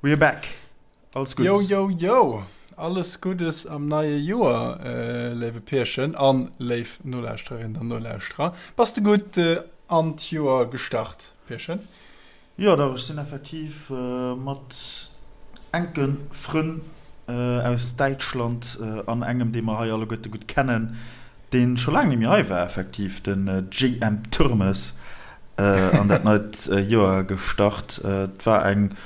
We're back! Alles Guddes! Yo, yo, yo! Alles Guddes am neie Joer, léiwe Pierchen an léif Nolauschtererinnen an Nolauschterer. Bass de gutt an d'Joer gestart, Pierchen? Jo, dach, ech sinn effektiv mat enke Frënn aus Däitschland an engem, dee mer hei alleguerte gutt kennen, dee scho laang net méi hei war, effektiv, den JM Turmes, an dat neit Joer gestart. Et war eng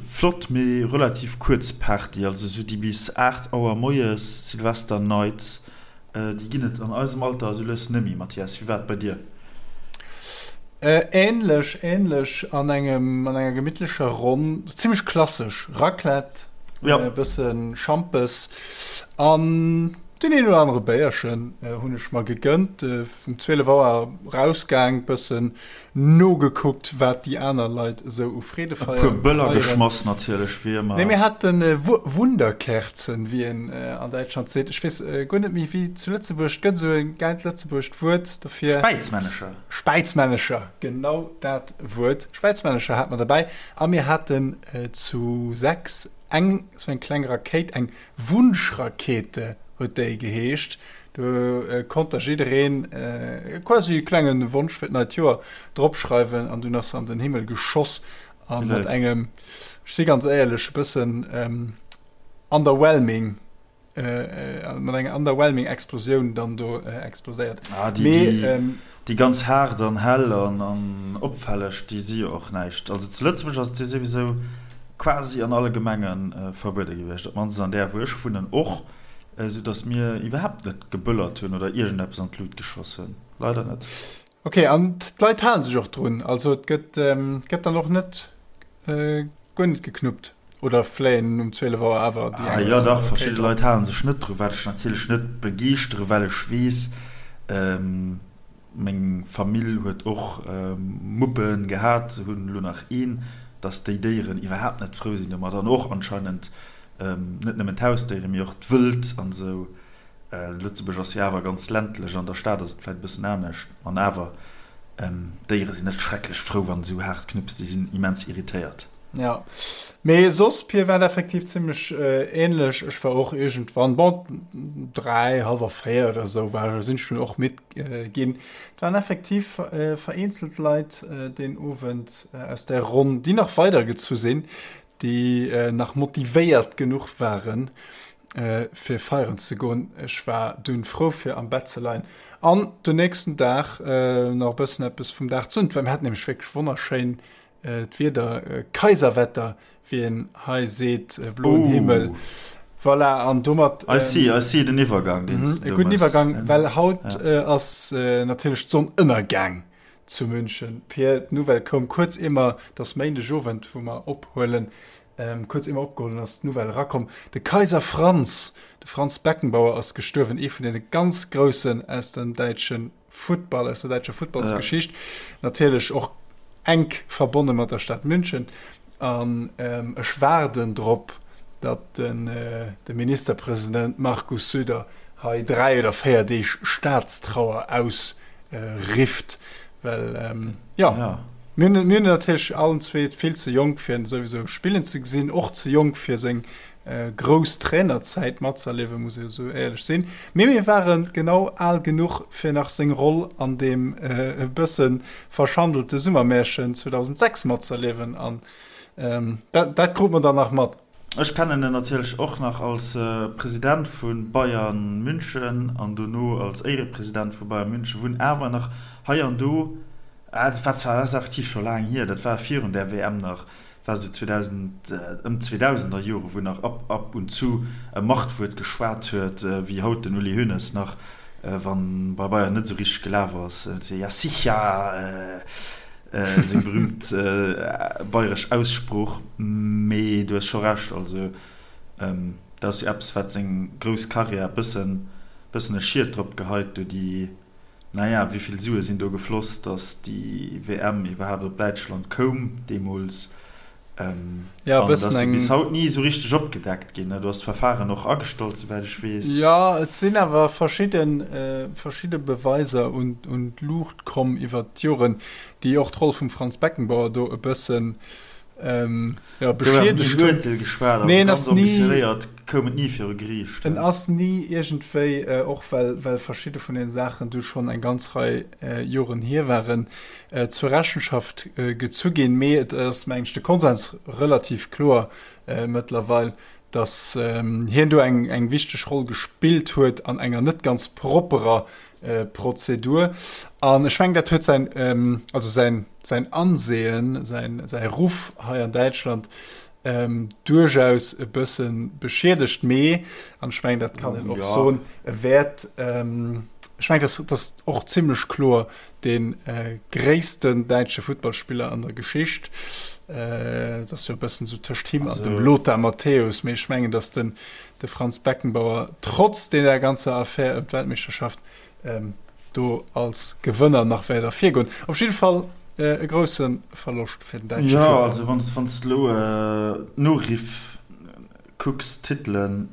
flott, mee relativ kuerz Party, also esou déi bis 8 Auer moies Silvester Nights, déi ginn et an eisem Alter esou lues net méi. Mathias, wéi war et bei dir? Ähnlech, ähnlech an engem, an enger gemittlecher Ronn, zimmlech klassesch, Raclette, e bësse Schampes an Deen een oder anere Béierchen hunn ech mer gegënnt. Um 12 Auer rausgaang, bëssen nogekuckt, wat déi aner Leit esou u Freedefeier feieren. E puer Böller geschmass natierlech, wéi ëmmer. Nee, mir haten Wunderkerzen, wéi een an Däitschland seet. Ech weess guer net méi, wéi zu Lëtzebuerg. Et gëtt esou e gäilt lëtzebuergescht Wuert dofir. Späizmännecher. Späizmännecher, genau dat Wuert. Späizmännecher hate mer derbäi. A mir haten zu 6 eng esou eng kleng Rakéit, eng Wunschrakete huet déi geheescht. Do konnt da jiddereen quasi e klenge Wonsch fir d'neit Joer dropschreiwen an dunn ass se an den Himmel geschoss a mat engem, ech si ganz éierlech, e bëssen underwhelming, mat enger underwhelming Explosioun dann do explodéiert. Ah, déi, déi ganz haart an hell an opfälleg, déi si jo och näischt. Also zu Lëtzebuerg ass et jo souwisou quasi an alle Gemenge verbuede gewiescht, op d'mannst an där wou ech wunnen och, esou datt mir iwwerhaapt net geböllert hunn oder iergendeppes an d'Lut geschoss hunn. Leider net. Ok, an d'Leit halen sech och drun? Also et gëtt gëtt dann och net guer net geknuppt oder fléien um 12 Auer awer déi eng oder aner Rakéit? Verschidde Leit halen sech net dru, wat ech natierlech net begeeschtere well ech weess, Meng Famill huet och Muppe gehat, se hunn elo nach een, dass déi Déieren iwwerhaapt net frou sinn domat an och anscheinend net nëmmen d'Hausdéieren, mee och d'Wëld an esou. Lëtzebuerg ass jo awer ganz ländlech, an der Stad ass et vläit e bëssen anescht, an awer, d'Déiere sinn net schrecklech frou, wann esou haart knupps, déi sinn immens irritéiert. Jo, mee soss, Pir, war et effektiv zimmlech ähnlech. Ech war och iergendwann, bon, 3, hallwer 4 oder esou war, sinn ech dunn och midd ginn. Et waren effektiv vereenzelt Leit deen Owend aus där Ronn, déi nach weidergezu sinn, déi nach motivéiert genuch waren, fir feieren ze goen. Ech war dunn frou, fir am Bett ze leien an den nächsten Dag nach e bëssen eppes vum Dag ze hunn. Well mir haten nämlech wierklech wonnerschéin D'Wieder, Kaiserwetter, wéi een hei seet, bloen Himmel. Voilà, an domat. I see, I see den Iwwergang, deen s de do méchs. E gudden Iwwergang, well haut ass natierlech d'Sonn ënnergaang zu München. Pir, d'Nouvelle koum kuerz ier mer, et ass Méindegowend, wou mer ophuelen, kuerz ier mer opgeholl hunn, ass d'Nouvelle erakomm, de Kaiser Franz, de Franz Beckenbauer ass gestuerwen, ee vun deene ganz Groussen aus dem däitsche Futtball, aus der däitscher Futtballsgeschicht. Natierlech och enk verbonne mat der Stad München. An ech waarden drop, datt de Ministerpresident Markus Söder hei 3 oder 4 Deeg Staatstrauer ausrifft, well jo, mir hunn natierlech allen zwee vill ze jonk fir en souwisou spillen ze gesinn, och ze jonk fir seng grouss Trainerzäit matzerliewen, muss ee esou éierlech sinn. Mee mir ware genau al genuch, fir nach seng Roll an deem e bësse verschandelte Summermärchen 2006 matzerliewen an dat dat krute mer dann nach mat. Ech kennen en natierlech och nach als President vu Bayern München an dono als Éierepresident vu Bayern München, wou en awer nach hei an do, dat war zwar, dat ass effektiv scho laang hier, dat war virun där WM nach, war sou 2000, ëm d'Zweedausenderjore, wou nach ab ab und zu e Machtwuert geschwat huet, wéi haut den Uli Hoeneß nach, wann bei Bayern net sou richteg gelaf ass, ja sicher, seng berühmt bayresch Aussprooch. Mee du hues scho Recht, also dat ass jo eppes, wat seng grouss Karriär bëssen bëssen e Schiet drop geheit, do déi Naja, wéi vill Sue sinn do gefloss, datt déi WM iwwerhaapt op Däitschland koum deemools? Ja, e An et bëssen ass jo eng. bis haut ni esou richteg opgedeckt ginn. Do ass d'Verfahren och agestallt, souwäit ech weess. Jo, et sinn awer verschidde, verschidde Beweiser un, un d'Luucht komm iwwert d'Joren, déi och d'Roll vum Franz Beckenbauer do e bëssen. Jo, beschiedegt hunn. Urteel geschwat, also ganz ambitionéiert koum et ni viru Geriicht. En ass ni iergendwéi, och well well verschidde vun den Saachen du schonn eng ganz Rei Joren hier waren, zur Rechenschaft gezu ginn. Mee et ass, mengen ech, de Konsens relativ kloer mëttlerweil, datt hien do eng eng wichteg Roll gespillt huet an enger net ganz propperer Prozedur. An ech mengen, dat huet säin, also säin, säin Ansehen, säin, säi Ruff hei an Däitschland duerchaus e bësse beschiedegt. Mee, an ech mengen, dat kann een och soen, e wäert, ech mengen, dat ass och zimlech kloer, dee gréissten däitsche Futtballspiller an der Geschicht. Dat ass jo e bëssen esou tëscht him an dem Lothar Matthäus. Mee ech mengen, datt den de Franz Beckenbauer trotz deeër ganzer Affär ëm d'Weltmeeschterschaft do als Gewënner nach wäert ervirgoen. Op jidde Fall e grousse Verloscht fir den däitsche Futtball. Jo, also wann s de elo d'Noriff kucks, d'Titelen,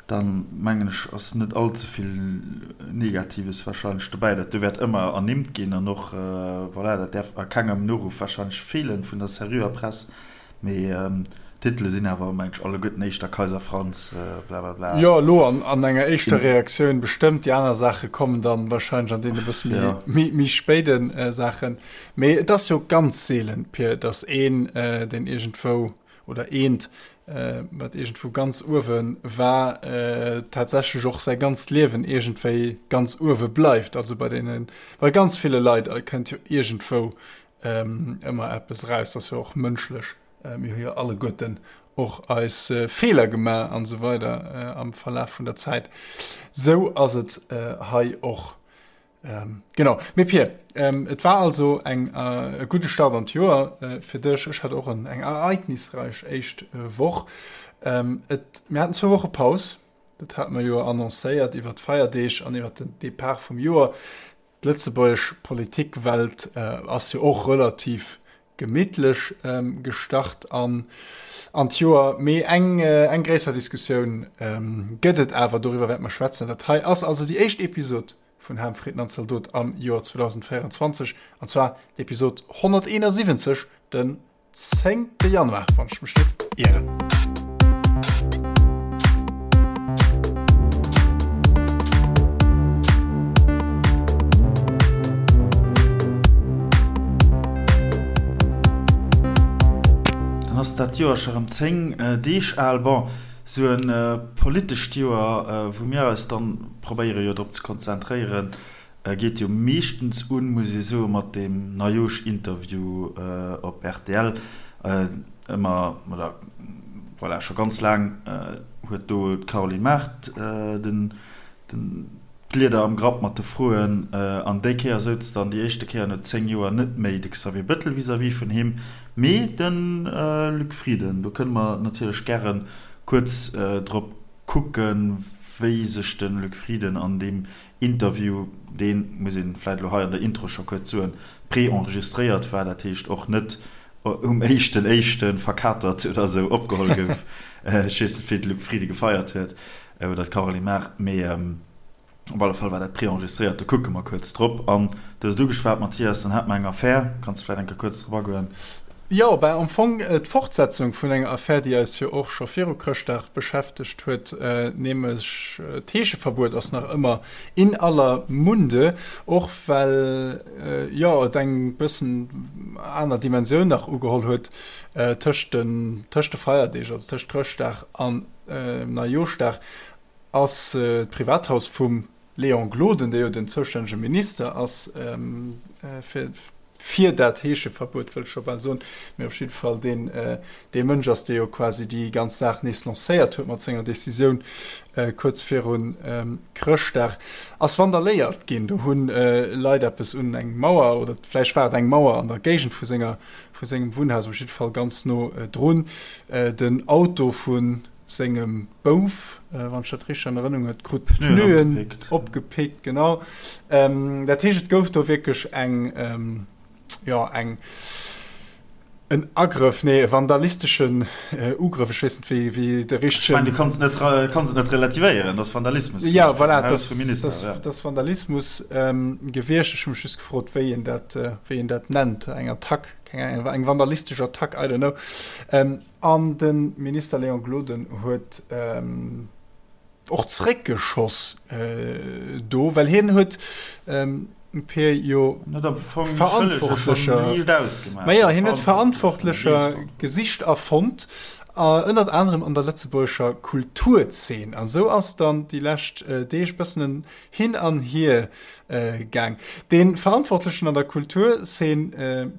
dann mengen ech ass net all ze vill Negatives warscheinlech dobäi. Dat do wäert ëmmer ernimmt ginn an och, voilà, dat däerf a kengem Noruff warscheinlech feelen vun der seriöer Press. Mee d'Titele sinn awer, mengen ech, alleguerten éischter Kaiser Franz, blablabla. Jo, elo an enger éischter Reaktioun bestëmmt. Déi aner Saache kommen dann wahrscheinlech an deene bësse méi, méi spéide Saachen. Mee et ass jo ganz seelen, Pir, datt een, deen iergendwou, oder eent, wat iergendwou ganz uewe war, tatsächlech och säi ganzt Liewen iergendwéi ganz uewe bleift. Also bei deene, bei ganz ville Leit kënnt jo iergendwou ëmmer eppes eraus, dat ass jo och mënschlech, mir hu jo alleguerten och eis Feeler gemaach an esou weider am Verlaf vun der Zäit. Sou ass et hei och. Genau. Mee Pir, et war also eng e gudde Start an d'Joer fir dech. Ech hat och en eng ereignisreich éischt Woch. Et, mir haten zwou Woche Paus, dat hate mer jo annoncéiert iwwer d'Feierdeeg an iwwer den Depart vum Joer. D'lëtzebuergesch Politikwelt ass jo och relativ gemittlech gestart an an d'Joer. Mee eng eng gréisser Diskussioun gëtt et awer, doriwwer wäerte mer schwätzen. Dat hei ass also déi éischt Episod vun Ham, Fritten an Zaldot am Joer 2024, an zwar d'Episod 171, den Zéngte Januar, wann ech mech net ieren. Dann ass dat Joer scho rëm 10 Deeg al. Bon, sou e politescht Joer, wou mir eis dann probéiere jo drop ze konzentréieren, Geet jo meeschtens un, muss ee soen, mat deem Neijoersch-Interview op rtl. Ëmmer, oder voilà, scho ganz laang huet do d'Caroline Mart den, d'Lieder am Grapp mat de Froen. An déi Kéier souz dann déi éischte Kéier no 10 Joer net méi de Xavier Bettel vis-à-vis vun him, mee de Luc Frieden. Do kënne mer natierlech gäre kuerz drop kucken, wéi sech de Luc Frieden an deem Interview, deen, muss een vläit elo hei an der Intro scho kuerz soen, pré-enregistréiert war, dat heescht och net um éischten éischten verkatert oder esou opgeholl gouf. Ech weess net, wéi de Luc Frieden gefeiert huet oder d'Caroline Mart, mee op alle Fall war dat pré-enregistréiert. Do kucke mer kuerz drop. An du hues et ugeschwat, Mathias, dann hate mer eng Affär. Kanns de vläit eng Kéier kuerz drop agoen? Jo, ben am Fong d'Fortsetzung vun enger Affär, déi eis jo och scho viru Chrëschtdag beschäftegt huet, nämlech d'Heescheverbuet ass nach ëmmer in aller Munde, och well jo et eng bëssen aner Dimensioun nach ugeholl huet tëscht de tëscht de Feierdeeg, also tëscht Chrëschtdag an Neijooschdag ass d'Privathaus vum Léon Gloden, dee jo den zoustännege Minister ass fir fir dat Heescheverbuet, wëll ech scho bal soen, mee op jidde Fall deen dee Mënsch ass, dee jo quasi déi ganz Saach nees lancéiert huet mat senger Decisioun kuerz viru Chrëschtdag, ass vandaléiert ginn. Do hu Leit eppes un eng Mauer, oder vläicht war et eng Mauer an der Géigend vu senger vu sengem Wunnhaus, op jidde Fall ganz no drun, den Auto vu sengem Bouf, wann ech dat richteg an Erënnung huet, krut d'Pneuen opgepickt, genau. Dat heescht, et gouf do wierklech eng, jo, eng. En Agrëff, nee, e vandalisteschen Ugrëff, ech weess net, wéi, wéi de richtegen. Ech mengen, du kanns et net, kanns et net relativéieren, dat ass Vandalismus gewiescht. Ja, voilà, dat ass, dat ass Vandalismus gewiescht. Ech hu mech just gefrot, wéi een dat, wéi een dat nennt, eng Attack, keng Ahnung, eng vandalistesch Attack, I don't know. An de Minister Léon Gloden huet. Och zréckgeschoss do, well hien huet d'Pier jo Verantwortlecher, ma jo, hien huet Verantwortlecher gesicht a fonnt, ënnert anerem an der lëtzebuergescher Kulturzeen. An esou ass dann déi lescht Deeg bëssen en Hin an Hier gaang. Dee Verantwortlechen an der Kulturzeen,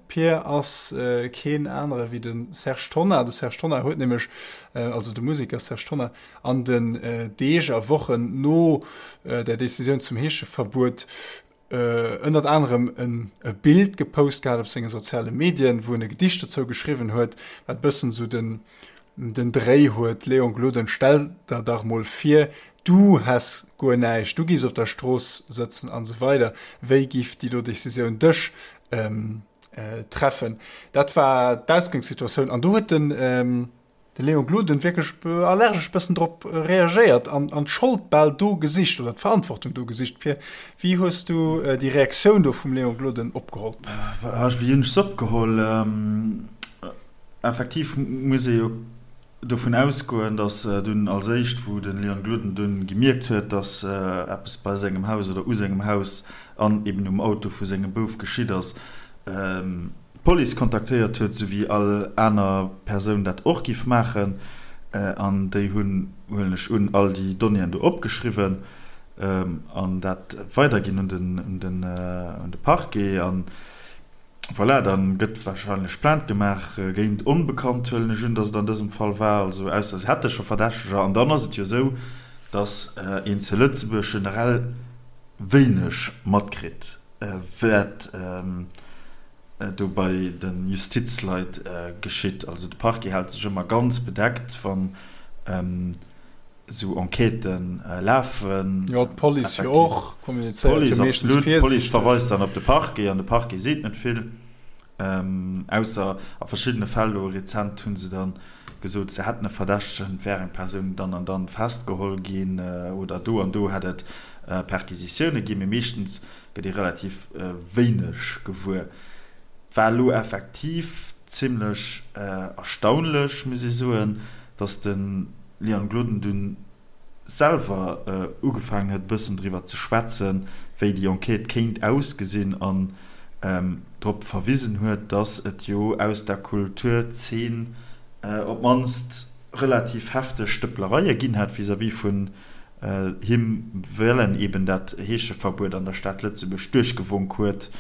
Pier, ass keen anere wéi de Serge Tonnar. De Serge Tonnar huet nämlech, also de Museker Serge Tonnar, An den Deeg a Wochen no der Decisioun zum Heescheverbuet ënnert anerem e Bild gepost gehat op senge soziale Medien, wou en e Gedicht dozou geschriwwen huet, wat bëssen esou den den Dréi huet, Léon Gloden, stell der dach mol vir, du häss guer näischt, du giffs op der Strooss sëtzen an esou weider, wéi giff déi do Decisioun dech treffen? Dat war d'Ausgangssituatioun an do huet den De Léon Gloden wierklech allergesch bëssen drop reagéiert an an d'Schold bal do gesicht oder d'Verantwortung do gesicht. Pir, wéi hues du déi Reaktioun do vum Léon Gloden opgeholl? Wéi hunn ech se opgeholl? Effektiv muss ee jo dovun ausgoen, datt dunn als éischt, wou de Léon Gloden dunn gemierkt huet, datt eppes bei sengem Haus oder u sengem Haus an eben um Auto vu sengem Bouf geschitt ass, d'Police kontaktéiert huet, sou wéi all aner Persoun dat och giff maachen, an déi hunn, huelen ech un, all déi Donnéeën do opgeschriwwen an dat weiderginn un den, un den, un de Parquet. An voilà, da gëtt wahrscheinlech Plainte gemaach géint Onbekannt, huelen ech un, datt et an dësem Fall war, also ausser se hätte scho Verdächteger. An dann ass et jo esou, datt een zu Lëtzebuerg generell wéineg matkritt, wat do bei de Justizleit geschitt. Also de Parquet hält sech ëmmer ganz bedeckt, wann esou Enquêtë lafen. Jo, d'Police jo och, kommunizéiert jo meeschtens virsiichteg. D'Police verweist dann op de Parquet an de Parquet seet net vill. Ausser a verschiddene Fäll, elo rezent hu se dann gesot, se hätten e Verdächtegen, et wär eng Persoun dann an dann festgeholl ginn oder do an do hätt et Perquisitioune ginn, mee meeschtens gëtt ee relativ wéineg gewuer. Et war elo effektiv zimmlech erstaunlech, muss ee soen, datt de Leon Gloden dunn selwer ugefaangen huet e bëssen driwwer ze schwätzen, wéi déi Enquête kéint ausgesinn an drop verwisen huet, datt et jo aus der Kulturzeen op d'mannst relativ hefteg Stëpplereie ginn hätt vis-à-vis vun him, well en eben dat Heescheverbuet an der Stad Lëtzebuerg duerchgewonk huet.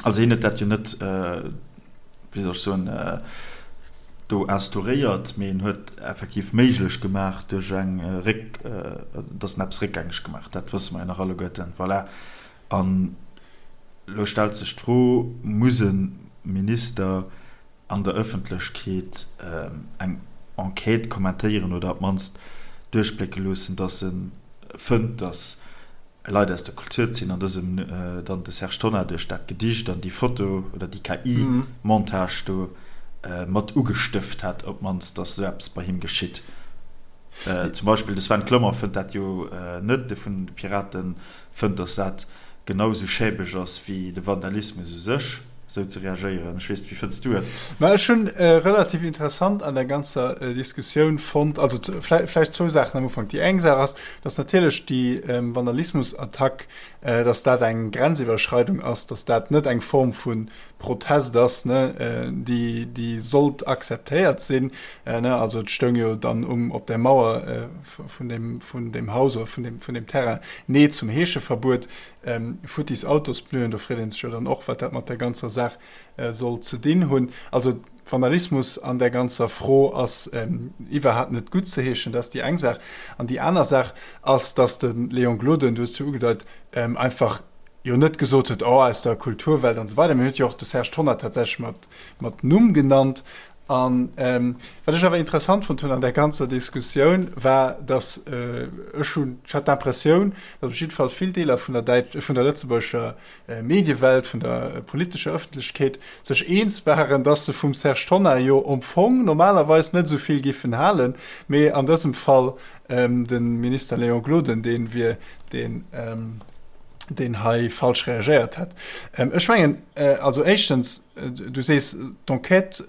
Also hien huet dat jo net, wéi soll ech soen, do instauréiert, mee en huet effektiv méiglech gemaach duerch eng Réck, datt en eppes réckgängeg gemaach huet. Dat wësse mer jo nach alleguerten. Voilà. An elo stellt sech d'Fro, Muss e Minister an der Ëffentlechkeet eng Enquête kommentéieren oder op d'mannst duerchblécke loossen, datt e fënnt, datt Leit aus der Kulturzeen, an dësem dann de Serge Tonnar duerch dat Gedicht an déi Foto oder déi KI-Montage do mat ugestëft hätt, op d'mannst, datt esou eppes bei him geschitt. Zum Beispill de Sven Clement fënnt dat jo net, dee vun de Piraten fënnt, datt dat genau esou schäbeg ass wéi de Vandalismus u sech, esou ze reagéieren. Ech weess net, wéi fënns du et? Ma ech hunn relativ interessant an der ganzer Diskussioun fonnt, also vläicht zwou Saachen am Ufank. Déi eng Saach ass, datt natierlech déi Vandalismusattack, datt dat eng Grenziwwerschreidung ass, datt dat net eng Form vu Protest ass, ne, déi, déi sollt akzeptéiert sinn. Ne, also et stoung jo dann um, op der Mauer vun deem, vun deem Haus oder vun deem, vun deem Terrain, Nee zum Heescheverbuet, futtis Autospneuen. Do freet ee sech jo dann och, wat dat mat der ganzer Saach soll ze dinn hunn. Also Vandalismus an där ganzer Fro ass iwwerhaapt net guttzeheeschen. Dat ass déi eng Saach. An déi aner Saach ass, datt de Léon Gloden, du hues et jo ugedeit, einfach jo net gesot huet, oh, aus der Kulturwelt an esou weider. Mir huet jo och de Serge Tonnar tatsächlech mat, mat Numm genannt. An wat ech awer interessant fonnt hunn an där ganzer Diskussioun, war, datt ech hunn, ech hat d'Impressioun, datt op jidde Fall vill Deeler vun der däit-, vun der lëtzebuergescher Mediewelt, vun der politescher Ëffentlechkeet sech eens waren, datt se vum Serge Tonnar jo am Fong normalerweis net esou vill giffen halen, mee an dësem Fall de Minister Léon Gloden dee wier, deen deen hei falsch reagéiert hätt. Ech mengen, also éischtens, du sees d'Enquête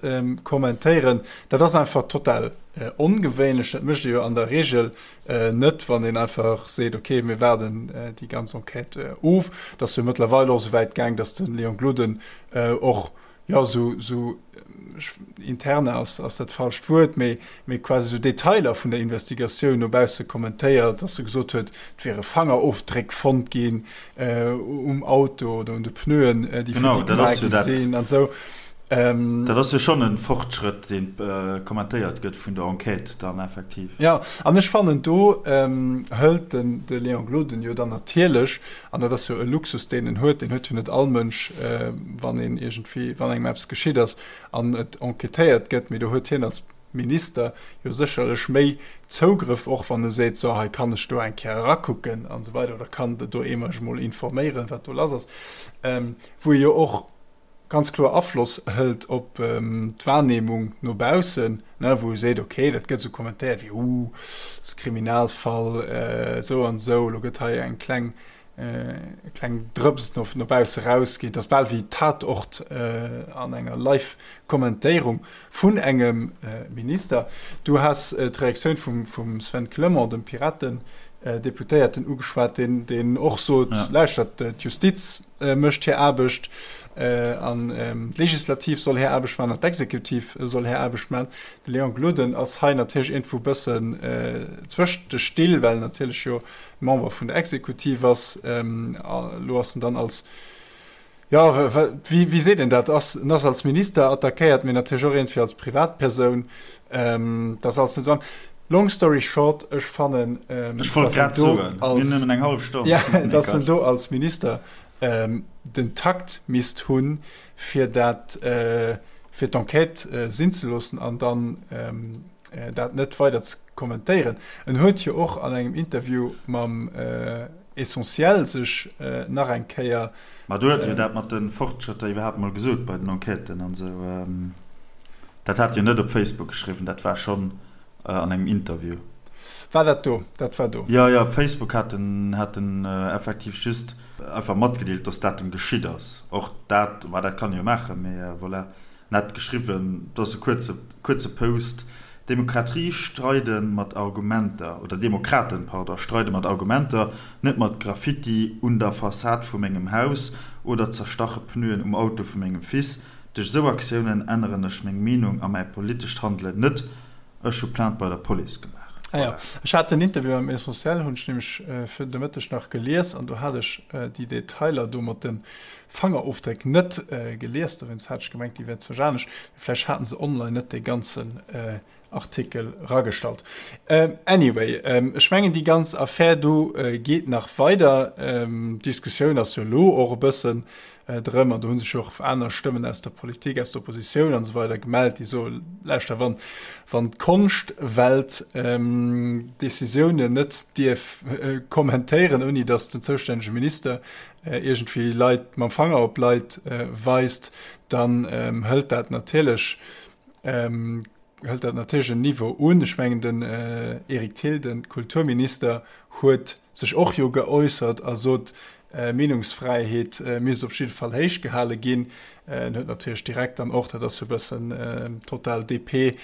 kommentéieren, dat ass einfach total ongewéinlech. Dat mécht ee jo an der Reegel net, wann een einfach seet, okay, mir waarden déi ganz Enquête of. Et ass jo mëttlerweil och esou wäit gaang, datt de Léon Gloden och, jo, esou, esou interne ass, ass dat falscht Wuert, mee, mee quasi esou Detailer vun der Investigatioun no bausse kommentéiert, datt e gesot huet, et wiere Fangerofdréck fonnt ginn um Auto oder un de Pneuen, déi futti gemaach gi sinn an esou. Dat ass jo schonn e Fortschrëtt, deen kommentéiert gëtt vun der Enquête dann effektiv. Jo, an ech fannen, do hëlt den de Léon Gloden jo dann natierlech, an dat ass jo e Luxus, deen en huet, deen huet jo net all Mënsch, wann een iergendwéi, wann engem eppes geschitt ass an et enquêtéiert gëtt, mee do huet hien als Minister jo sécherlech méi Zougrëff, och wann e seet, so hei kann ech do eng Kéier erakucken an esou weider oder kann do ee mech emol informéieren, wat do lass ass, wou e jo och ganz kloer Afloss hëlt op d'Wahrnehmung no baussen, wou e seet, okay, dat gëtt esou kommentéiert wéi, uh, dat ass e Kriminalfall, esou an esou, elo gëtt hei eng kleng kleng Drëps no no bausse rausginn. Dat ass bal wéi Tatort an enger Live-Kommentéierung vun engem Minister. Du has d'Reaktioun vum vum Sven Clement, dem Piraten-Deputéierten, ugeschwat, deen deen och sot, Lauschtert, d'Justiz mécht hir Aarbecht an d'Legislativ soll hir Aarbecht maachen an d'Exekutiv soll hir Aarbecht maachen. De Léon Gloden ass hei natierlech iergendwou e bëssen zwëscht de Still, well en natierlech jo Member vun der Exekutiv ass. Elo ass en dann als, jo, wéi, wéi seet een dat, ass, en ass als Minister attackéiert, mee natierlech och iergendwéi als Privatpersoun. Dat ass alles net esou. Long story short, ech fannen, Ech wollt dass en grad do soen, mir hunn als, nëmmen eng hallef Stonn. ja, Nee, dass en Quatsch. do als Minister den Takt misst hunn, fir dat, fir d'Enquête sinn ze loossen an dann dat net weider ze kommentéieren. En huet jo och an engem Interview mam Essentiel sech nach eng Kéier. Ma do huet e jo dat mat de Fortschrëtter iwwerhaapt mol gesot bei den Enquêten an esou. Dat hat jo net op Facebook geschriwwen, dat war schonn an engem Interview. War dat do? Dat war do. Jo, jo, op Facebook hat en hat en effektiv just einfach matgedeelt, dass dat em geschitt ass. Och dat, ma dat kann e jo maachen, mee voilà. En hat geschriwwen, et ass e kuerze, kuerze Post, Demokratie streide mat Argumenter, oder Demokraten, pardon, streide mat Argumenter, net mat Graffiti un der Fassad vu mengem Haus oder zerstache Pneuen um Auto vu mengem Fils. Duerch esou Aktiounen änneren ech meng Meenung a mäi politescht Handelen net. Ech hu Plainte bei der Police gemaach. Ah jo, ech hat den Interview am Essentiel, hunn ech nämlech fir de Mëtteg nach gelies an do hat ech déi Detailer do mat de Fangerofdréck net gelies, dowéinst hat ech gemengt, déi wär zwar anescht, mee vläicht haten se online net dee ganzen Artikel ragestallt. Anyway, ech mengen déi ganz Affär do geet nach weider. D'Diskussioun ass jo elo och e bëssen drëm, an do hu sech jo och aner Stëmmen aus der Politik, aus der Oppositioun an esou weider gemellt, déi soen, lauschter, wann, wann d'Konschtwelt Decisiounen net dierf kommentéieren, ouni datt den zoustännege Minister iergendwéi Leit mam Fanger op Leit weist, dann hëlt dat natierlech hëlt dat natierlech en Niveau un. Ech mengen den Eric Thill, de Kulturminister, huet sech och jo geäussert a sot, Meenungsfräiheet misst op jidde Fall héich gehale ginn. En huet natierlech direkt dann och, dat ass jo e bëssen total DP,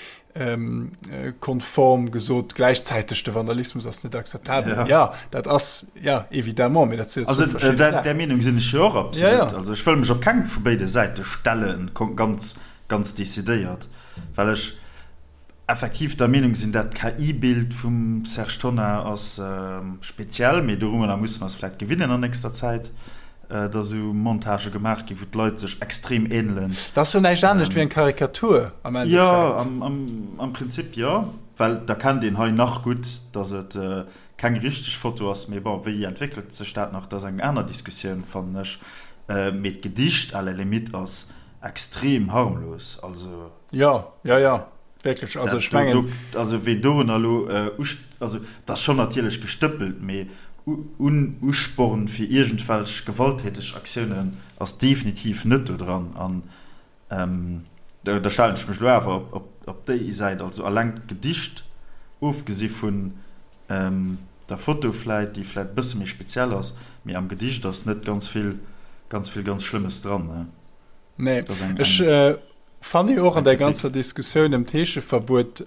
konform gesot, gläichzäiteg de Vandalismus ass net akzeptabel. Ja, ja dat ass ja évidemment, mee dat sinn jo zwou verschidde Saachen. Där Meenung sinn ech jo och absolut. Ja, ja. Also ech wëll mech op keng vu béide Säite stellen, ganz, ganz decidéiert, well ech effektiv der Meenung sinn, dat KI-Bild vum Serge Tonnar ass speziell, mee dorunner musse mer eis vläicht gewinnen an nächster Zäit. Dass esou Montagë gemaach ginn, wou d'Leit sech extrem ähnelen. Dat ass jo näischt anescht wéi eng Karikatur am Endeffekt. Jo, am Prinzip jo, well da kennt een hei nach gutt, dass et keng richteg Foto ass. Mee bon, wéi entwéckelt sech dat nach, dat ass eng aner Diskussioun, fannen ech. Mee d'Gedicht à la limite ass. Extrem harmlos, also. Jo, jo, jo, wierklech. Also ech mengen. Also ween dorunner elo, also et ass schonn natierlech gestëppelt, mee un Usporn fir iergendwelch gewalttäteg Aktiounen ass definitiv net do dran. An da stellen ech mech elo awer op déi Säit, also alleng d'Gedicht, ofgesi vun der Foto vläit, déi vläit e bësse méi speziell ass, mee am Gedicht ass net ganz vill, ganz vill ganz Schlëmmes dran, ne? Nee, ech fanne jo och an der ganzer Diskussioun ëm d'Heescheverbuet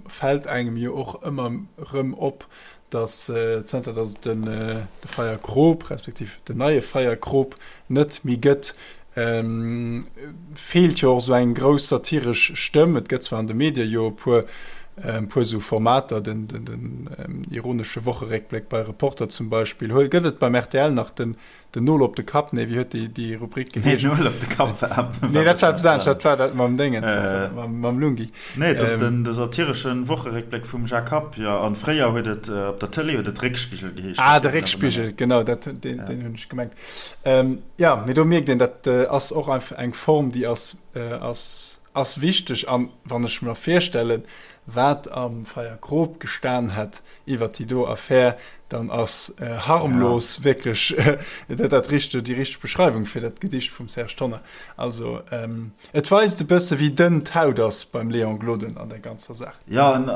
fält engem jo och ëmmer rëm op, datt zënter datt et den de Feierkrop, respektiv den neie Feierkrop net méi gëtt, feelt jo och esou eng grouss satiresch Stëmm. Et gëtt zwar an de Medie jo e puer e puer esou Formater, den den ironesche Wocheréckbléck bei Reporter zum Beispill. Huel gëtt et beim rtl nach den den Nol op de Kapp? Nee, wéi huet déi déi Rubrik geheescht? Nee, Nol op de Kapp war Nee, dat war eppes anescht, dat war dat mam Déngens, mam mam Lungi. Nee, et ass den de satireschen Wocheréckbléck vum Jacques Happ, jo. An fréier huet et op der Tëlee huet et Réckspigel geheescht. Ah, de Réckspigel, genau, dat deen deen hunn ech gemengt. Jo, mee do mierkt een, dat ass och einfach eng Form, déi ass, ass, ass wichteg. An wann ech mer virstellen, wat am Feierkrop gestan hätt iwwert déi do Affär, dann ass harmlos wierklech dat dat richte, déi richteg Beschreiwung fir dat Gedicht vum Serge Tonnar. Also et weist e bësse wéi dënn d'Haut ass beim Léon Gloden an der ganzer Saach. Jo, en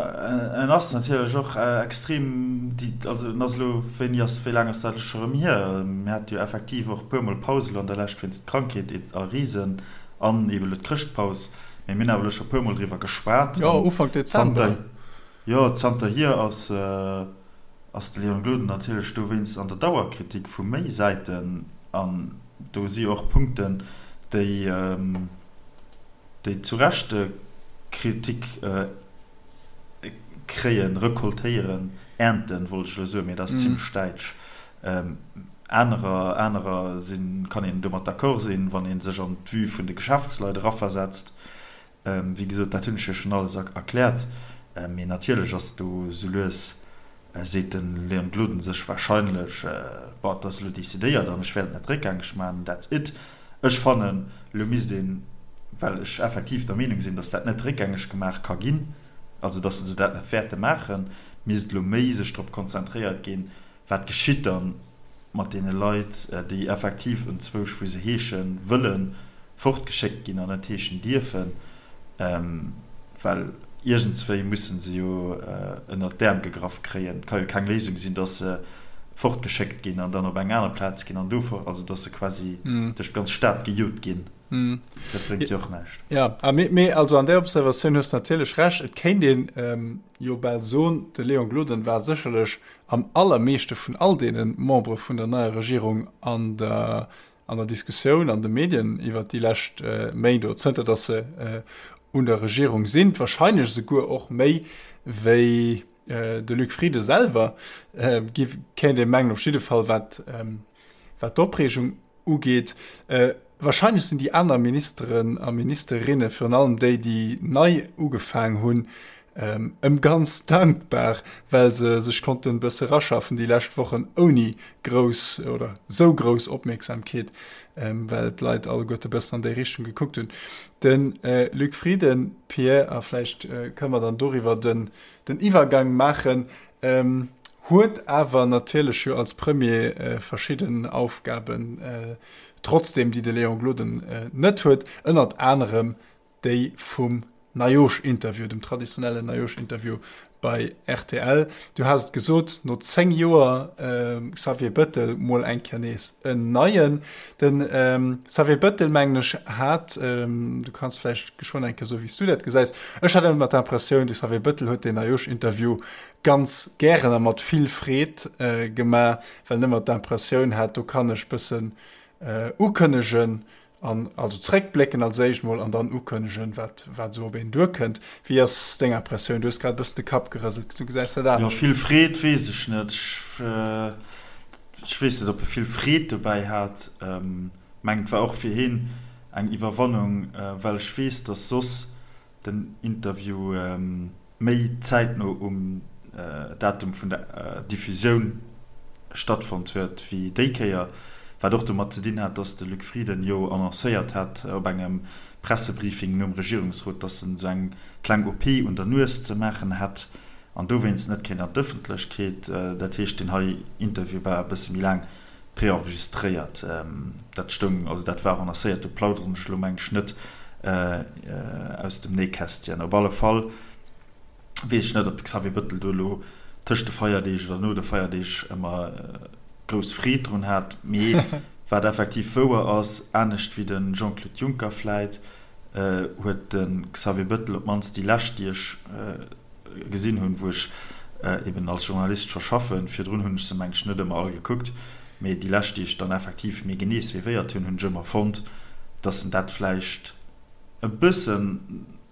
ass natierlech och extrem, also en ass elo, wéini ass, wéi laang ass dat elo scho rëm hier? Mir hate jo effektiv och e puermol Paus elo an der Lescht wéinst Krankheet a Risen an eeben elo d'Chrëschtpaus, mee mir hunn awer elo scho e puermol driwwer geschwat. Jo, Ufank Dezember. Jo, zanterhier ass, ass de Léon Gloden natierlech dowéinst an der Dauerkritik vu méi Säiten an do si och Punkten, déi, déi zu Recht Kritik kréien, recoltéieren, ernten, wollt ech elo soen, mee dat ass zimlech däitsch. Anerer, anerer sinn, kann een domat d'accord sinn, wann ee sech an d'Vue vun de Geschäftsleit eraversetzt. Wéi gesot, dat hunn ech jo schonn alles erkläert. Mee natierlech ass do esou lues, seet de Léon Gloden sech wahrscheinlech, Bon, et ass elo decidéiert an ech wäert et net réckgängeg maachen, that's it. Ech fannen, elo misst een, well ech effektiv der Meenung sinn, datt dat net réckgängeg gemaach ka ginn, also datt se dat net wäerte maachen, misst elo méi sech drop konzentréiert ginn, Wat geschitt dann mat deene Leit, déi effektiv enzwousch, wou se heesche wëllen, fortgeschéckt ginn an net heeschen dierfen? Well iergendswéi musse se jo ënnert d'Äerm gegraff kréien. Et ka jo keng Léisung sinn, datt se fortgeschéckt ginn an dann op eng aner Plaz ginn an do fort, also datt se quasi duerch d'ganz Stad gejot ginn. Dat bréngt jo och näischt. Jo, mee also an där Observatioun hues de natierlech Recht. Et kéint een jo bal soen, de Léon Gloden war sécherlech am allermeeschte vun all deene Membere vun der neier Regierung an der an der Diskussioun an de Medien iwwert déi lescht Méint oder zënter datt se un der Regierung sinn, wahrscheinlech esouguer och méi wéi de Luc Frieden selwer, kéint ee mengen, op jidde Fall wat wat d'Opreegung ugeet. Wahrscheinlech sinn déi aner Ministeren a Ministerinne, virun allem déi, déi nei ugefaang hunn, ëm ganz dankbar, well se sech konnten e bësse raschaffen déi lescht Wochen ouni grouss oder sou grouss Opmierksamkeet, well d'Leit alleguerte bëssen an déi Richtung gekuckt hunn. De Luc Frieden, Pierre, a vläicht kënne mer dann doriwwer den Iwwergang maachen, Huet awer natierlech jo als Premier verschidden Aufgaben trotzdem, déi de Léon Gloden net huet, ënnert anerem déi vum Neijoerschinterview, dem traditionellen Neijoerschinterview bei rtl. Du has et gesot, no 10 Joer Xavier Bëttel mol eng Kéier nees en neien. De Xavier Bëttel, mengen ech, hat, du kanns vläicht geschwënn eng Kéier soen, wéi s du dat gesäis, ech hat ëmmer d'Impressioun, de Xavier Bëttel huet deen Neijoerschinterview ganz gären a mat vill Freed gemaach, well en ëmmer d'Impressioun hat, do kann ech bëssen ukënnegen an also zréckblécken als éischt mol an dann ukënnegen, wat wat esou op een duerkënnt. Wéi ass deng Impressioun? Du hues grad e bëssen de Kapp gerëselt, du gesäis dat Jo, anescht. vill Freed weess ech net. Ech weess net, ob e vill Freed dobäi hat. Mengen, et war och fir hien eng Iwwerwannung, well ech weess, datt soss den Interview méi zäitno um Datum vun der Diffusioun stattfonnt huet wéi déi Kéier. Wat och domat ze dinn hat, datt de Luc Frieden jo annoncéiert hat op engem Pressebriefing nom Regierungsrot, datt en esou eng kleng OP un der Nues ze maachen hätt an dowéinst net kéint an d'Ëffentlechkeet. Dat heescht, deen hei Interview war e bësse méi laang preenregistréiert. Dat stoung, also dat war annoncéiert, do plauderen ech elo mengen ech net aus dem Nähkästchen. Op alle Fall weess ech net, ob de Xavier Bëttel do elo tëscht de Feierdeeg oder no de Feierdeeg ëmmer grouss Freed drun hat. Mee wat effektiv wouer ass, anescht wéi de Jean-Claude Juncker vläit, huet de Xavier Bëttel op d'mannst déi lescht, déi ech gesinn hunn, wou ech eben als Journalist scho schaffen, virdrun hunn ech se mengen ech net ëmmer all gekuckt, mee déi lescht, déi ech dann effektiv méi genee suivéiert hunn, hunn ech ëmmer fonnt, datt en dat vläicht e bëssen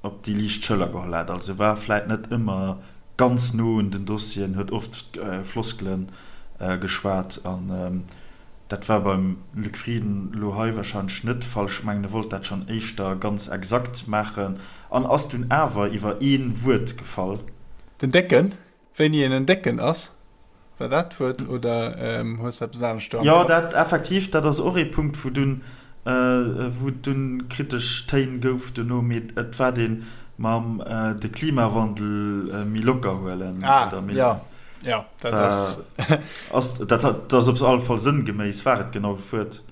op déi liicht Schëller geholl hat. Also war vläit net ëmmer ganz no un den Dossieren, huet oft Floskele geschwat an dat war beim Luc Frieden elo hei warscheinlech net de Fall. Ech mengen, e wollt dat schonn éischter ganz exakt maachen an ass dunn awer iwwer ee Wuert gefall. Den Décken? Wéini een en Décken ass, war dat d'Wuert, oder hues de eppes anescht do am Jo, Kapp? dat effektiv, dat ass och ee Punkt, wou dunn, wou et dunn kritesch Téin gouf dono, mee et war dee mam de Klimawandel méi locker huelen Ah, oder méi, jo, jo, dat war, ass. ass, dat hat, dat ass op alle Fall sënngeméiss war et genau d'Wuert.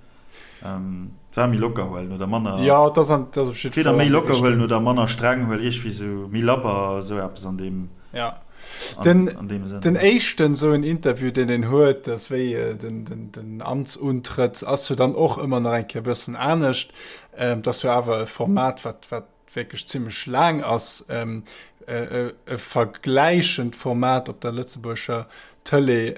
War méi locker huelen oder manner. Jo, et ass an, et ass op jiddwer Fall méi locker huelen oder manner streng huelen, iergwéi sou méi labber, sou eppes an deem. Ja. Den, an deem Sënn. Den éischten sou en Interview, deen een huet, dat ass wéi den, den, den Amtsuntrëtt, ass jo dann och ëmmer nach eng Kéier e bëssen anescht. Et ass jo awer e Format, wat, wat wierklech zimmlech laang ass. E vergläichend Format op der lëtzebuergescher Tëlee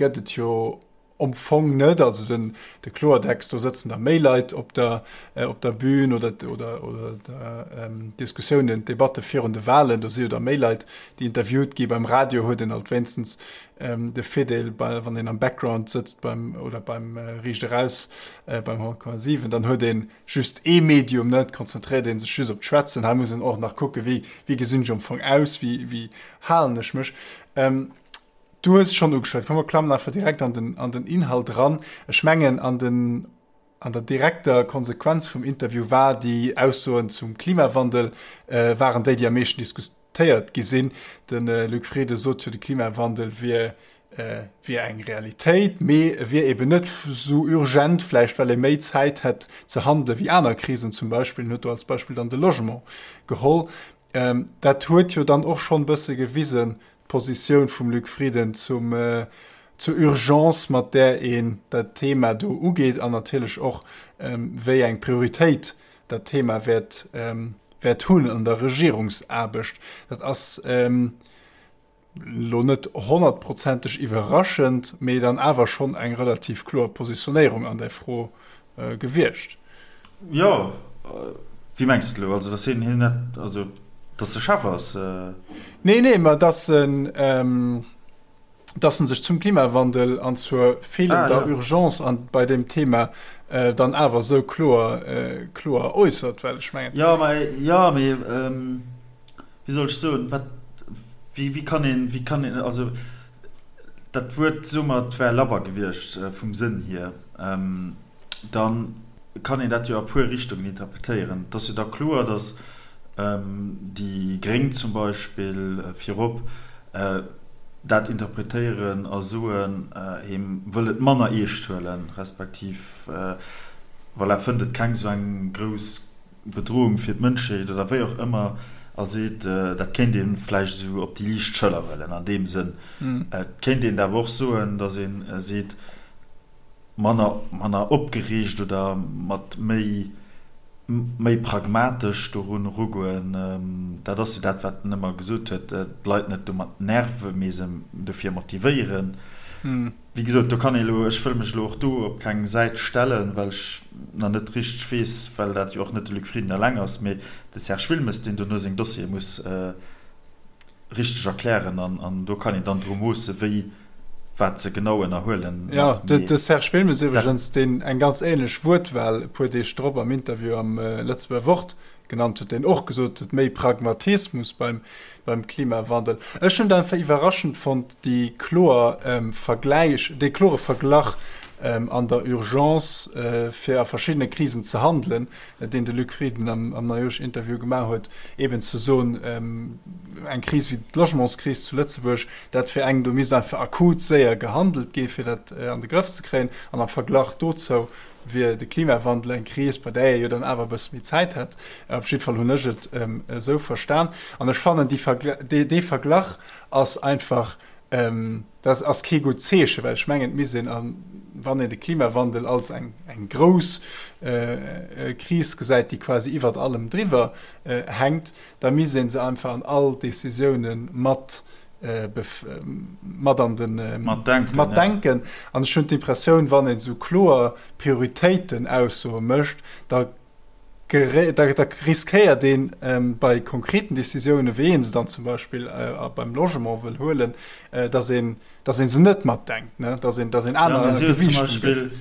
gëtt et jo Am Fong net, also den de Kloertext, do sëtzen da méi Leit op der op der Bühn oder oder oder der Diskussiounen, d'Debatte virun de Wahlen, do si jo da méi Leit, déi interviewt gi. Beim Radio huet een alt wéinstens de Virdeel, bei wann een am Background sëtzt beim oder beim Riicht eraus beim 100,7, dann huet ee just ee Medium, ne, et konzentréiert ee sech just op d'Schwätzen. Hei muss een och nach kucke wéi wéi gesinn ech am Fong aus, wéi wéi halen ech mech. Du hues et schonn ugeschwat, komm mer klammen einfach direkt an den, an den Inhalt eran. Ech mengen, an den, an der direkter Konsequenz vum Interview war déi Aussoen zum Klimawandel waren déi, déi am meeschten diskutéiert gi sinn. De Luc Frieden sot jo, de Klimawandel wier, wier eng Realitéit, mee e wier eben net esou urgent, vläicht well ee méi Zäit hätt ze handele wéi aner Krisen zum Beispill. En huet do als Beispill dann de Logement geholl. Dat huet jo dann och schonn e bësse gewisen, d'Positioun vum Luc Frieden zum, zur Urgence, mat där een dat Thema do ugeet an natierlech och, wéi eng Prioritéit dat Thema wäert, wäert hunn an der Regierungsaarbecht. Dat ass elo net honnertprozenteg iwwerraschend, mee dann awer schonn eng relativ kloer Positionéierung an där Fro gewiescht. Jo, wéi mengs de elo? Also, datt hien net, also datt e Chef ass? Nee, nee, mä datt en, datt en sech zum Klimawandel an zur feelender Urgence an bei deem Thema dann awer esou kloer, kloer äussert, well ech mengen. Jo, mä, jo, mee. Wéi soll ech soen, wat, wéi, wéi kann een, wéi kann een, also dat Wuert, soe mer, et wär labber gewiescht vum Sënn hier, da kann een dat jo a puer Richtungen interpretéieren. Et ass jo da kloer, datt déi Gréng zum Beispill virop dat interpretéieren a soen, hie wëll et manner eescht huelen, respektiv, voilà, fënnt et keng esou eng grouss Bedrohung fir d'Mënschheet oder wéi och ëmmer a seet, dat kéint ee vläicht esou op déi liicht Schëller huelen an deem Sënn. Et kéint een et awer och soen, datt ee seet, manner, manner opgereegt oder mat méi, méi pragmatesch dorun erugoen. Dat ass jo dat, wat en ëmmer gesot huet, d'Leit net domat nerven, mee se dofir motivéieren. Wéi gesot, do kann ee elo, ech wëll mech elo och do op keng Säit stellen, well ech nach net richteg weess, well dat jo och net de Luc Frieden eleng ass, mee de Serge Wilmes, deen dono seng Dossiere muss richteg erklären an do kann een dann dru moossen, wéi, Wat se genau ënnerhuelen, nach. Jo, de Serge Wilmes iwwregens, deen eng ganz ähnlech Wuertwahl e puer Deeg drop am Interview am Lëtzebuerger Wort genannt huet, deen och gesot huet, méi Pragmatismus beim Klimawandel. Ech hunn et einfach iwwerraschend fonnt, déi kloer Vergläich, dee klore Verglach an der Urgence, fir a verschiddene Krisen ze handelen, deen de Luc Frieden am Neijoersch-Interview gemaach huet, eben ze soen, eng Kris wéi d'Logementskris zu Lëtzebuerg, dat wier eng, do misst einfach akut séier gehandelt gi fir dat an de Grëff ze kréien. An am Verglach dozou wier de Klimawandel eng Kris, bei där ee jo dann awer e bësse méi Zäit hätt. Op jidde Fall hunn ech et esou verstan. An ech fannen, dee Verglach ass einfach, Dat ass kee gutt Zeechen, well ech mengen, et misst een, wann een de Klimawandel als eng grouss Kris gesäit, déi quasi iwwert allem driwwer hänkt, da misst ee se einfach an all Décisioune mat mat an de matdenken. An ech hunn d'Impressioun, wann een esou kloer Prioritéitenaussoe mécht, da Da riskéiert een bei konkreten Décisiounen, wéi ee se dann zum Beispill beim Logement wëll huelen, datt een, datt ee se net matdenkt, datt een, datt een aner Gewiichtungen gëtt.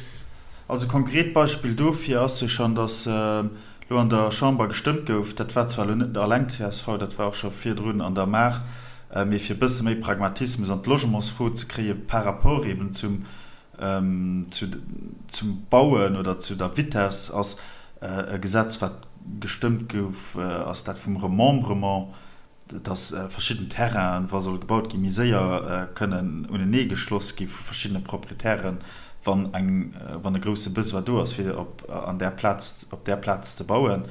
Also konkret Beispill dofir ass jo schonn, datt elo an der Chamber gestëmmt gouf, dat war zwar elo net alleng csv, dat war och scho virdrun an der Maach, mee fir e bësse méi Pragmatismus an d'Logementsfro ze kréie par rapport eben zum Zum Bauen oder zu der Vitess ass e Gesetz, wat gestëmmt gouf, ass dat vum Remembrement, dass verschidden Terrainen, wa soll gebaut ginn, méi séier kënnen uneneegeschloss gi vu verschiddene Proprietären, wann eng, wann e grousse Besoin do ass, fir op an där Plaz, op där Plaz ze bauen.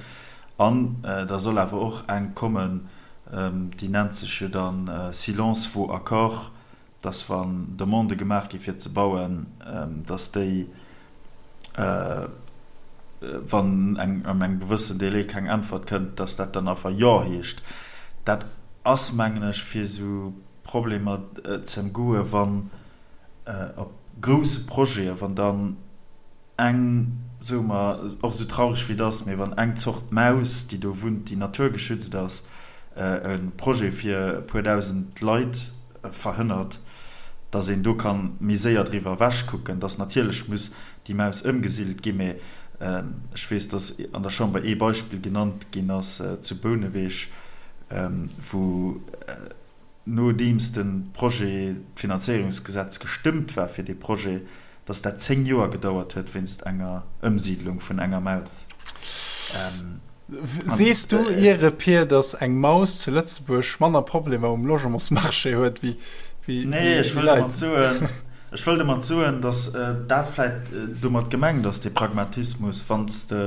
An da soll awer och eng kommen, déi nennt sech jo dann Silence vaut accord, dass wann Demandë gemaach gi fir ze bauen, dass déi, wann an engem gewëssen Délai keng Äntwert kënnt, dass dat dann einfach Jo heescht. Dat ass, mengen ech, fir esou Problemer ze ëmgoen, wann op grousse Projete, wann dann eng, soe mer, och esou traureg wéi et ass, mee wann eng Zort Maus, déi do wunnt, déi naturgeschützt ass, e Projet fir e puer dausend Leit verhënnert, datt een do ka méi séier driwwer ewechkucken, datt natierlech muss déi Maus ëmgesidelt ginn, mee ech weess, datt an der Chamber ee Beispill genannt ginn ass zu Bouneweg, wou nodeems de Projet, d'Finanzéierungsgesetz gestëmmt war fir dee Projet, dass dat 10 Joer gedauert huet wéinst enger Ëmsiidlung vun enger Maus. Sees du iere Pir, dass eng Maus zu Lëtzebuerg manner Problemer um Logementsmarché huet wéi Leit? Nee, ech wëll domat soen, ech wëll domat soen, dass dat vläit domat gemengt ass, dee Pragmatismus, wann s de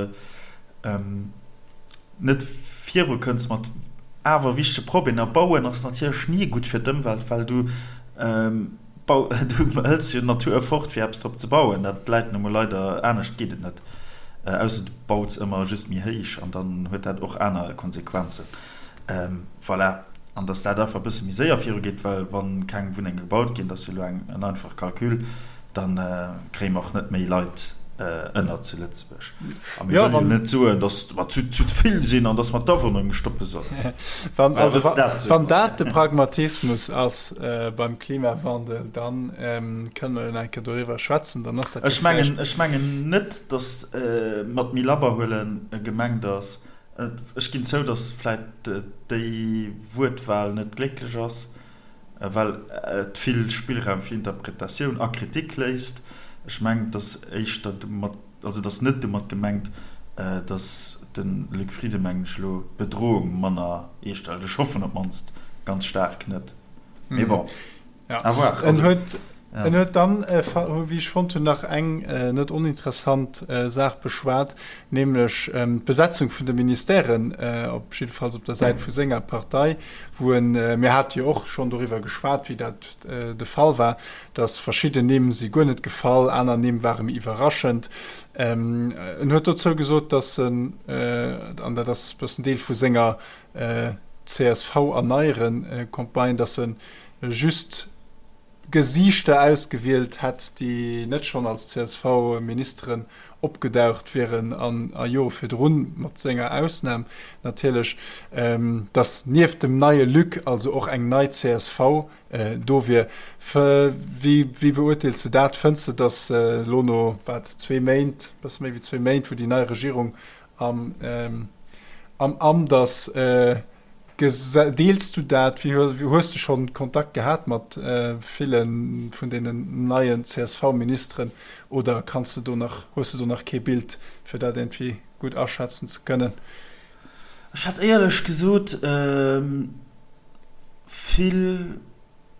net viru kënns mat awer wichtege Problemer. Bauen ass natierlech ni gutt fir d'Ëmwelt, well du du hëls jo d'Natur fort fir eppes drop ze bauen. Dat läit nu mol leider, anescht geet et net, ausser du baus ëmmer just méi héich an dann huet dat och aner Konsequenzen. Voilà, an datt dat einfach e bësse méi séier virugeet, well wa keng Wunnenge gebaut ginn, dat ass jo elo en einfache Calcul, Da kréie mer och net méi Leit ënner zu Lëtzebuerg. A mir wëllen jo net soen, datt mer zu vill sinn an datt mer d'Awunnerung stoppe sollen. Wann dat de Pragmatismus ass beim Klimawandel, da kënne mer jo nach eng Kéier doriwwer schwätzen. Dann ass dat jo vläicht. Ech mengen net, datt mat méi labber huele gemengt ass. Ech ginn zou, datt vläicht déi Wuertwal net glécklech ass. well et vill Spillraum fir Interpretatioun a Kritik léisst. Ech mengen, et ass éischter domat, also et ass net domat gemengt, datt de Luc Frieden, mengen ech elo, d'Bedroung manner eescht hëlt. Ech hoffen op d'mannst ganz staark net. Mee bon, à voir. En huet, en huet dann, wéi ech fonnt hunn, nach eng net oninteressant Saach beschwat, nämlech d'Besetzung vun de Ministèren, op jiddefalls op der Säit vu senger Partei, wou en, mir hate jo och schonn doriwwer geschwat, wéi dat de Fall war, datt verschidden Nimm si guer net gefall, aner Nimm ware méi iwwerraschend. En huet dozou gesot, datt en, an dat ass e bëssen Deel vu senger CSV-Erneieren-Campagne, datt e just. Gesiichter ausgewielt hätt, déi net schonn als CSV-Ministeren opgedaucht wieren an a Jore virdrun, mat senger Ausnam natierlech, datt nieft dem neie Luc also och eng nei csv do wier. Wéi beurteels de dat? Fënns de, datt elo no, wat, zwee Méint, e bësse méi wéi zwee Méint, wou déi nei Regierung am Amt ass, Deels du dat? Wéi hues de schonn Kontakt gehat mat ville vun deenen neien CSV-Ministeren oder kanns de do nach, hues de do nach kee Bild, fir dat iergendwéi gutt aschätzen ze kënnen? Ech hat éierlech gesot vill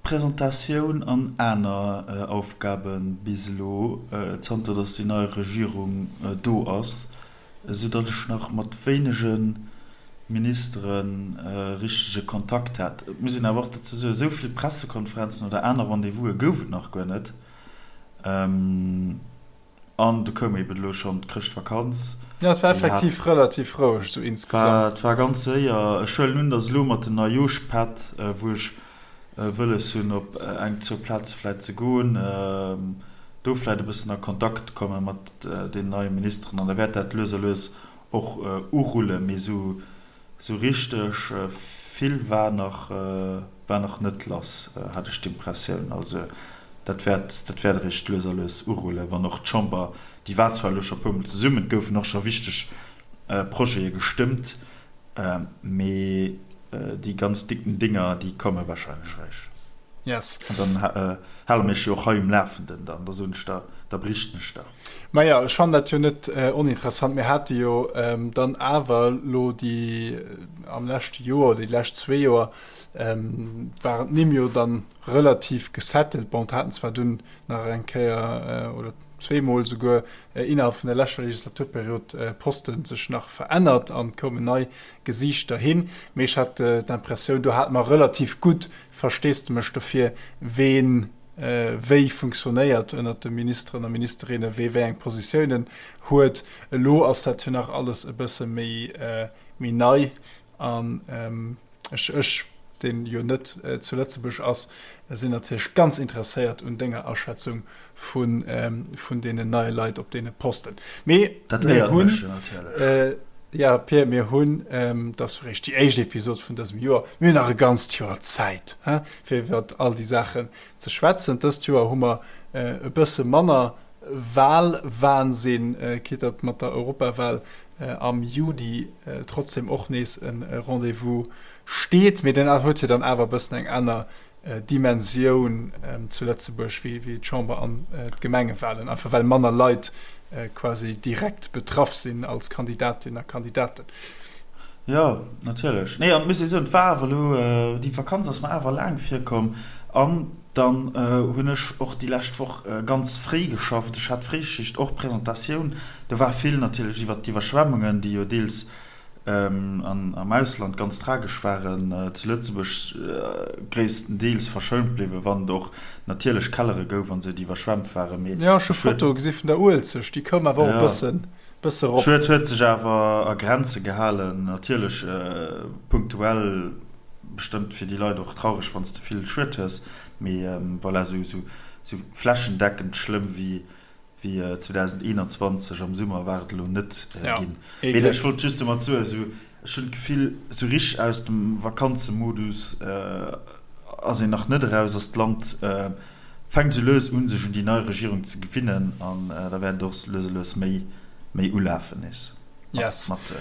Presentatioun an aner Aufgabe bis elo, zanter datt déi nei Regierung do ass. esou datt ech nach mat wéinege Ministere richtege Kontakt hat. Et muss een awer och dozou soen, esou vill Pressekonferenzen oder aner Rendez-vouse gouf et nach guer net. An du koum eben elo schonn d'Chrëschtvakanz. Jo, et war effektiv relativ roueg esou insgesamt. Et war ganz séier. Ech huelen un, datt elo mat den Neijoschpätt, wou ech wëlles hunn op eng, zwou Plaze vläit ze goen, do vläit e bëssen a Kontakt komme mat deenen neie Ministeren an da wäert dat lues a lues och urullen. Mee esou richteg vill war nach, war nach net lass, hat ech d'Impressioun. Also dat wäert, dat wäert eréischt lues a lues urullen, wann och d'Chamber, déi war zwar elo scho e puermol zesummen, et goufen och scho wichteg Projete gestëmmt, Mee déi ganz dicken Dinger, déi komme wahrscheinlech eréischt. Yes. An dann hale mir iech jo och hei um Lafenden dann, da soen ech der, da berichten ech der. Maja, ech fannen dat jo net oninteressant. Mir hate jo dann awer elo déi am leschte Joer oder déi lescht zwee Joer waren d'Nimm jo dann relativ gesettelt. Bon, et haten zwar dunn nach eng Kéier oder zweemol souguer innerhalb vun der leschter Legislaturperiod Posten sech nach verännert an koumen nei Gesiichter hin. Mee ech hat d'Impressioun, do hate mer relativ gutt Versteesdemech dofir, ween wéi funktionéiert ënnert de Ministeren a Ministerinnen, wee wéi eng Positiounen huet. Elo ass dat jo nach alles e bësse méi nei an Ech, ech, deen jo net zu Lëtzebuerg ass, sinn natierlech ganz interesséiert un denger Aschätzung vun, vun deenen neie Leit op deene Posten. Mee Dat mir éiert hunn, mech jo natierlech. ja Pir, mir hunn, dat ass eréischt déi éischt Episod vun dësem Joer, mir hunn nach e ganzt Joer Zäit, he, fir iwwert all déi Saachen ze schwätzen. Dëst Joer hu mer e bësse manner Wahlwahnsinn, quitte datt mat der Europawal am Juni trotzdem och nees e Rendez-vous steet. Mee den huet jo dann awer e bëssen eng aner Dimensioun zu Lëtzebuerg wéi d'Chamber an d'Gemengewahlen, einfach well manner Leit quasi direkt betraff sinn als Kandidatinnen a Kandidaten. Jo, natierlech. Nee, an et muss ee soen, et war awer elo, déi Vakanz ass mer awer laang virkomm. An Dann hunn ech och déi lescht Woch ganz fréi geschafft. Ech hat Fréischicht, och Presentatioun. Do war vill natierlech iwwert d'Iwwerschwemmungen, déi jo deels am Ausland ganz tragesch waren, zu Lëtzebuerg gréisstendeels verschount bliwwen, wann et och natierlech Kellere gouf an esou, déi iwwerschwemmt waren. Mee Jo, ech hu Fotoe gesi vun der Uelzecht, déi koum awer och e bëssen, bësse rop. Schued huet sech awer a Grenze gehalen. Natierlech punktuell. Bestëmmt fir déi Leit och traureg wanns de vill Schued hues, mee voilà, sou flächendeckend schlëmm wéi 2021 am Summer war et elo net ginn. Mee ech wollt just domat soen, sou ech hunn d'Gefill sou richteg aus dem Vakanzemodus ass een nach net eraus, ass d'Land fänkt sou lues un sech un déi nei Regierung ze gewinnen an da wäert et och lues a lues méi ulafen nees mat.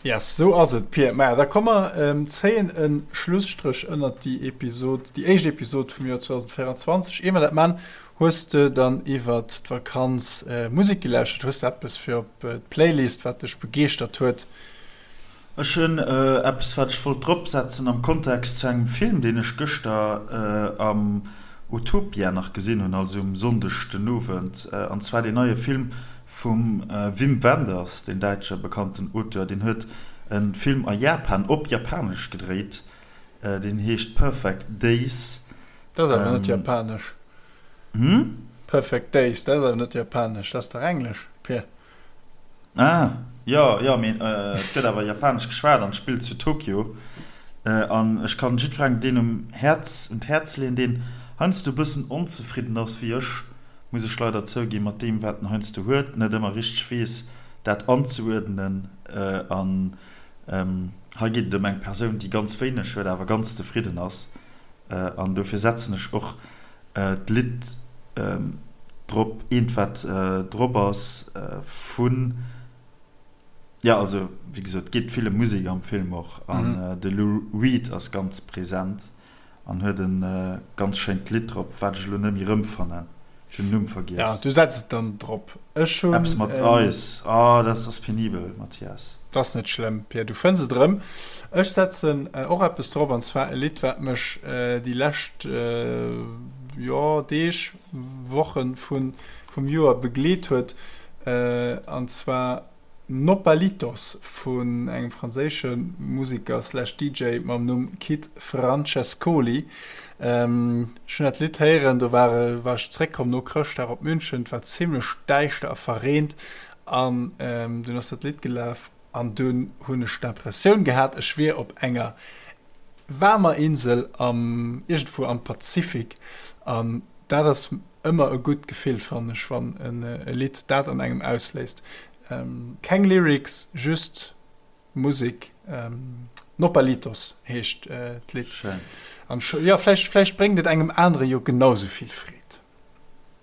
Yes, sou ass et, Pir. Maja, da komm mer zéien e Schlusstréch ënnert déi Episod, déi éischt Episod vum Joer 2024. Ier mer dat man, hues de dann iwwert d'Vakanz Musek gelauschtert? Hues de eppes fir op d'Playlist, wat dech begeeschtert huet? Ech hunn eppes, wat ech wollt dropsetzen am Kontext zu engem Film, deen ech gëschter am Utopia nach gesinn hunn, also um Sonndeg den Owend, an zwar deen neie Film Vum Wim Wenders, deen däitsche bekannten Auteur, deen huet e Film a Japan op Japanesch gedréit, deen heescht Perfect Days. Dat ass awer net japanesch. Hm? Perfect Days, dat ass awer net japanesch, dat ass dach englesch, Pir. Ah, jo, jo, mee et gëtt awer japanesch geschwat an et spillt zu Tokio. An ech kann jiddwerengem deen um Häerz, un d'Häerz leeën, deen. heiansdo e bëssen onzefridden ass, wéi ech, muss ech leider zouginn, mat deem, wat en heiansdo huet, net ëmmer richteg weess, dat anzeuerdnen. An hei geet et ëm eng Persoun, déi ganz wéineg huet, awer ganz zefridden ass. An dofir setzen ech och d'Lidd drop, eent, wat drop ass vun. Jo, also wéi gesot, et geet vill ëm Musek am Film och an de Lou Reed ass ganz present an huet e ganz schéint Lidd drop, wat ech elo net méi erëmfannen. Ech hunn den Numm vergiess. Ja, du setz et dann drop. Ech hunn. Eppes mat Eis. Oh, dat ass penibel, Mathias. Dat ass net schlëmm, Pia, du fënns et erëm. Ech setzen och eppes drop, an zwar e Lidd, wat mech déi lescht, jo, Deeg, Wochen vun vum Joer begleet huet, an zwar Nopalitos vun engem franséische Museker slash DJ mam Numm Kid Francescoli. Ech hunn dat Lidd héieren, do war war ech zeréckkomm no Chrëschtdag op München, et war zimmlech däischter a verreent an dunn ass dat Lidd gelaf an dunn hunn ech d'Impressioun gehat, ech wier op enger waarmer Insel am iergendwou am Pazifik an dat ass Ëmmer e gutt Gefill fannen ech wann e Lidd dat an engem ausléist. Keng Lyrics, just Musek. Nopalitos heescht d'Lidd. Schéin. An jo, vläicht vläicht bréngt et engem anere jo genau sou vill Freed.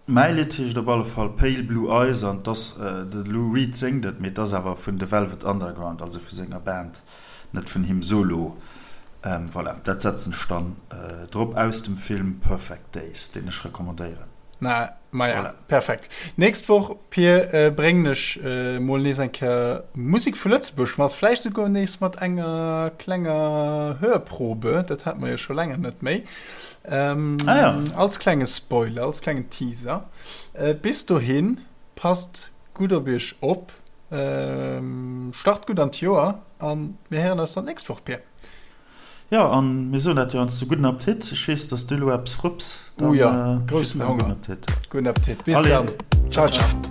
Mäi Lidd heescht op alle Fall Pale Blue Eyes an 't ass, de Lou Reed séngt et, mee 't ass awer vun The Velvet Underground, also vu senger Band. Net vun him solo. Voilà, dat setzen ech dann drop aus dem Film Perfect Days, deen ech recommandéieren. Na, maja, voilà. Perfekt. Nächst Woch, Pir, bréngen ech mol nees eng Kéier Musek vu Lëtzebuerg mat, vläicht souguer nees mat enger klenger Hörprobe, dat hate mer jo scho länger net méi. Ah ja. Als klenge Spoiler, als klengen Teaser. Bis dohin, passt gutt op iech op. Start gutt an d'Joer an mir héieren eis dann d'nächst Woch, Pir. Jo, an mir soen dat jo heiansdo, gudden Appetit. Ech weess, dass du elo eppes frupps. Oh jo, groussen Honger. Gudden Appetit. Bis dann. Ciao, ciao.